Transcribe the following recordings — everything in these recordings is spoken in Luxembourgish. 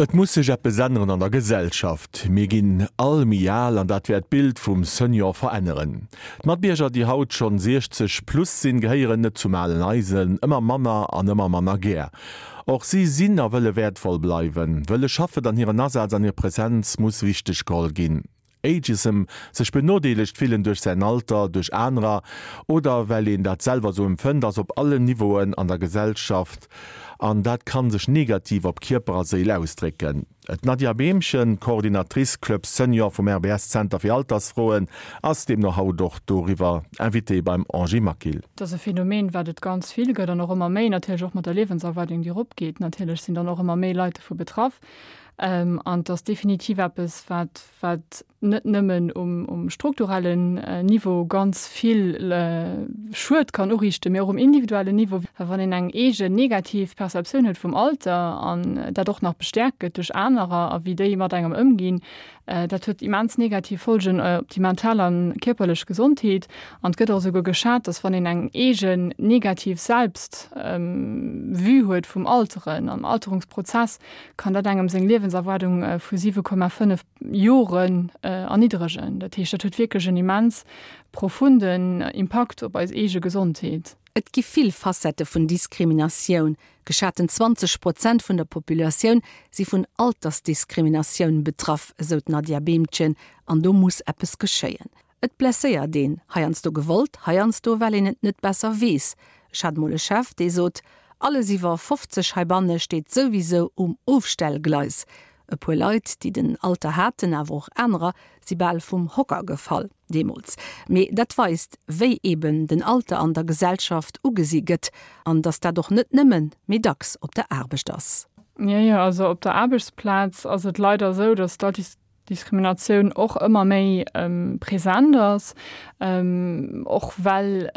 Et muss sech eppes änneren an der Gesellschaft. Mir ginn all méi al an dat wäert d'Bild vum Senior veränneren. D'Matbierger, déi haut schonn 60 plus sinn, gehéieren net zum alen Eisen, ëmmer manner an ëmmer manner gär. Och si sinn a wëlle wäertvoll bleiwen, wëlle schaffen an hiren Asaz an hir Presenz muss wichteg geholl ginn. Ageism, sech benodeelegt fillen duerch säin Alter, duerch anerer oder well een dat selwer sou empfënnt, ass op allen Niveauen an der Gesellschaft an dat kann sech negativ op Kierper a Séil ausdrécken. D'Nadia Behmchen, Coordinatrice Club Senior vum RBS Zenter fir Altersfroen, ass deemno haut och doriwwer Invitée beim Angie Maquil. Et ass e Phänomen, wat et ganz vill gëtt an och ëmmer méi, natierlech och mat der Liewenserwaardung, déi eropgeet. Natierlech sinn dann och ëmmer méi Leit dovu betraff. An et ass definitiv eppes, wat, wat net nëmmen um, um strukturellen Niveau ganz vill Schued kann uriichten, mee och um individuellen Niveau. Well wann een eng eegen negativ Perceptioun huet vum Alter an dat och nach bestäerkt gëtt duerch anerer a wéi déi mat engem ëmginn, Dat huet immens negativ Folgen op déi mental a kierperlech Gesondheet. An et gëtt och esouguer geschat, dass wann een eng eegen negativ Selbst-Vue huet vum Alteren, am Alterungsprozess, kann dat engem seng Liewenserwaardung vu 7,5 Joren erniddregen. Dat heescht, dat huet wierklech en immens profunden Impakt op eis eege Gesondheet. Et gi vill Facettë vun Diskriminatioun. Geschaten 20 Prozent vun der Populatioun si vun Altersdiskriminatioun betraff, esou d'Nadja Behmchen, an do muss eppes geschéien. Et blesséiert een, heiansdo gewollt, heiansdo well een et net besser weess. Ech hat mol e Chef, dee sot, Alles iwwer 50 heibanne steet souwisou um Ofstellgleis. E puer Leit, déi den Alter haten, awer och anerer, si bal vum Hocker gefall deemools. Mee dat weist, wéi eben den Alter an der Gesellschaft ugesi gëtt an datt dat och net nëmmen, mee dacks op der Aarbecht ass. Jo, jo, also op der Aarbechtsplaz ass et leider esou, datt d'Altersdiskriminatioun och ëmmer méi present ass, och well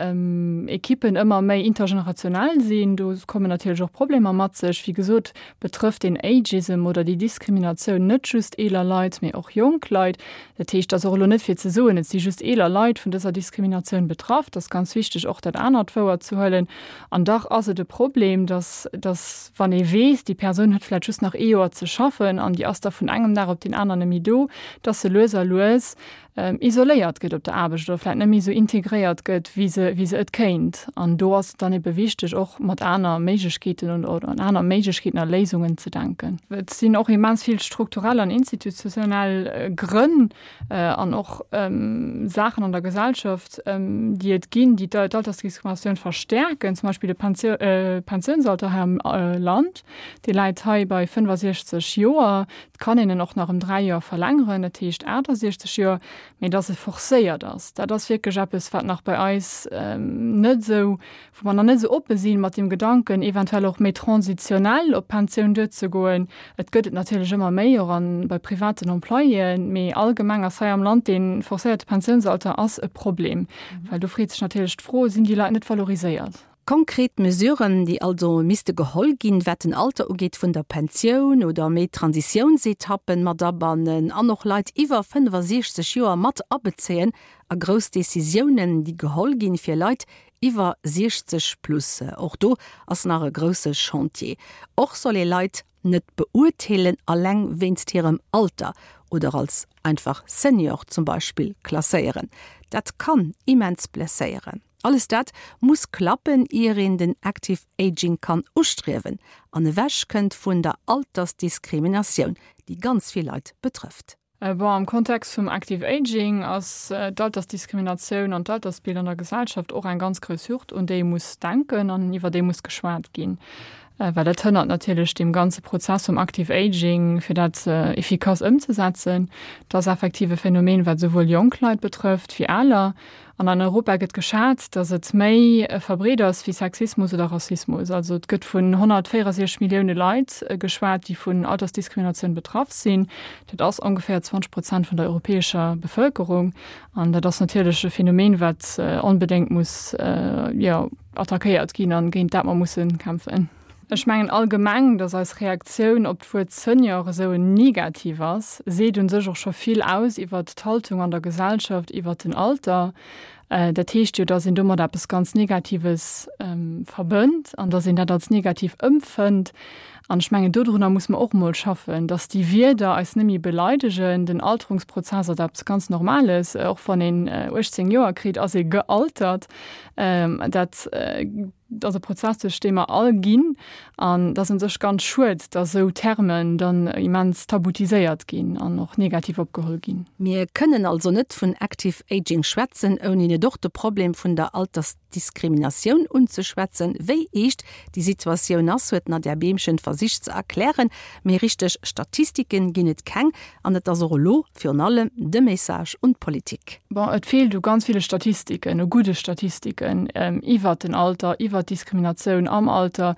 Ekippen ëmmer méi intergenerationell sinn. Do kommen natierlech och Problemer mat sech. Wéi gesot, betrëfft den Ageism oder déi Diskriminatioun net just eeler Leit, mee och jonk Leit. Dat heescht, et ass och elo net fir ze soen, et si just eeler Leit vun dëser Diskriminatioun betraff. Et ass ganz wichteg, och dat anert wouerzehuelen. An dach ass et e Problem, dass, dass wann ee weess, déi Persoun huet vläicht just nach ee Joer ze schaffen an déi ass da vun engem Dag op deen aneren net méi do, dass se lues a lues isoléiert gëtt op der Aarbecht oder vläit net méi esou integréiert gëtt, wéi se, wéi se et kéint. An do ass et dann ebe wichteg, och mat aner Méiglechkeeten oder un aner Méiglechkeeten a Léisungen ze denken. Et sinn och immens vill strukturell an institutionell Grënn an och Saachen an der Gesellschaft, déi et ginn, déi d'Altersdiskriminatioun verstäerken, zum Beispill de Pensiounsalter hei am Land, dee läit hei bei 65 Joer. Et kann een en och nach ëm 3 Joer verlängeren, dat heescht 68 Joer, mee dass e forcéiert ass, dat ass wierklech eppes, wat nach bei eis net esou, wou mer nach net esou oppe si mat deem Gedanken, eventuell och méi transitionell op d'Pensioun duerzegoen. Et gëtt et natierlech ëmmer méi, och an bei privaten Employéen, mee allgemeng ass hei am Land dee forcéierte Pensiounsalter ass e Problem, well do freet sech natierlech d'Fro, Sinn déi Leit net valoriséiert? Konkret Mesuren, déi also misste geholl ginn, wat den Alter ugeet vun der Pensioun oder méi Transitiounsetappen mat abannen an och Leit iwwer 65 Joer mat abezéien a grouss Decisiounen, déi geholl ginn, fir Leit iwwer 60 plus. Och do ass nach e grousse Chantier. Och soll ee Leit net beurteelen alleng wéinst hirem Alter oder als einfach Senior zum Beispill klasséieren. Dat kann immens blesséieren. Alles dat muss klappen, ier een den Active Aging kann ustriewen an ewech kënnt vun der Altersdiskriminatioun, déi ganz vill Leit betrëfft. Bon, am Kontext vum Active Aging ass d'Altersdiskriminatioun an d'Altersbild an der Gesellschaft och eng ganz grouss Hürd, un déi ee muss denken an iwwer déi muss geschwat ginn, well dat hënnert natierlech deem ganze Prozess vum Active Aging, fir dat efficace ëmzesetzen. Dat ass effektiv e Phänomen, wat esouwuel jonk Leit betrëfft wéi aler. An an Europa gëtt geschat, datt et méi verbreet ass wéi Sexismus oder Rassismus. Also et gëtt vun 164 Millioune Leit geschwat, déi vun Altersdiskriminatioun betraff sinn. Dat ass ongeféier 20 Prozent vun der europäescher Bevëlkerung. An dat ass natierlech e Phänomen, wat onbedéngt muss, jo, attackéiert ginn an géint dat mer musse kämpfen. Ech mengen allgemeng, datt eis Reaktioun op d'Wuert Senior esou negativ ass, seet un sech och scho vill aus iwwert d'Haltung an der Gesellschaft iwwert den Alter. Dat heescht jo, dass een domat eppes ganz Negatives verbënnt an dass een dat als negativ ëmpfënnt. An ech mengen, dodrunner muss mer och emol schaffen, dass déi Wierder eis net méi beleidegen. Den Alterungsprozess ass eppes ganz Normales. Och wann een 18 Joer kritt, ass ee gealtert. Dat ass e Prozess, duerch dee mer all ginn. An et ass un sech ganz schued, dass esou Termen dann immens tabutiséiert ginn an och negativ opgeholl ginn. Mir kënnen also net vun Active Aging schwätzen, ouni net och de Problem vun der Altersdiskriminatioun unzeschwätzen. Wéi eescht déi Situatioun ass, huet d'Nadja Behmchen versicht ze erklären. Mee richteg Statistiken ginn et keng an et ass och elo virun allem de Message un d'Politik. Bon, et feelt u ganz ville Statistiken, u gudde Statistiken iwwert den Alter, iwwert d'Diskriminatioun am Alter,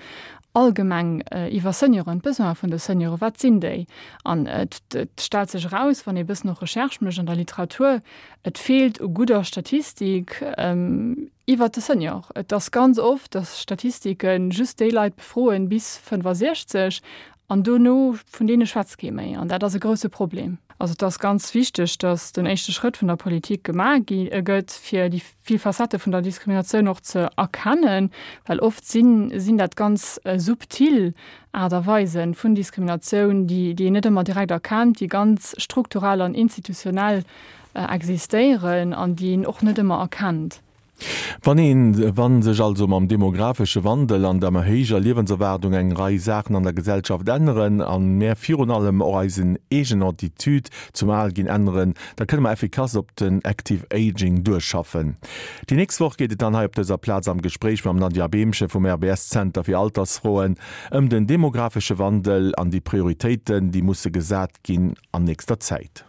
allgemeng iwwer Senioren, d'Besoine vun de Senioren, wat sinn déi? An et stellt sech eraus, wann ee e bëssen och Recherche mécht an der Literatur, et feelt u gudder Statistik iwwert de Senior. Et ass ganz oft, dass Statistike just déi Leit befroen bis 65 An dono, vun deene schwätzt kee méi. An dat ass e grouse Problem. Also et ass ganz wichteg, datt den éischte Schrëtt vun der Politik gemaach gi gëtt, fir déi vill Facettë vun der Diskriminatioun och ze erkennen, well oft sinn sinn dat ganz subtil Aart a Weisen vun Diskriminatioun, déi déi een net ëmmer direkt erkennt, déi ganz strukturell an institutionell existéieren an déi een och net ëmmer erkennt. Wann een, wa sech also mam demographesche Wandel an der méi héijer Liewenserwaardung eng Rei Saachen an der Gesellschaft änneren an mär virun allem och eisen eegen Attitude zum Alginn änneren, da kënne mer effikass op den Active Aging duerschaffen. Déi nächst Woch geet et dann hei op dëser Plaz am Gespréich mam Nadja Behmchen vum RBS Zenter fir Altersfroen ëm den demographesche Wandel an déi Prioritéiten, déi musse gesat ginn an nächster Zäit.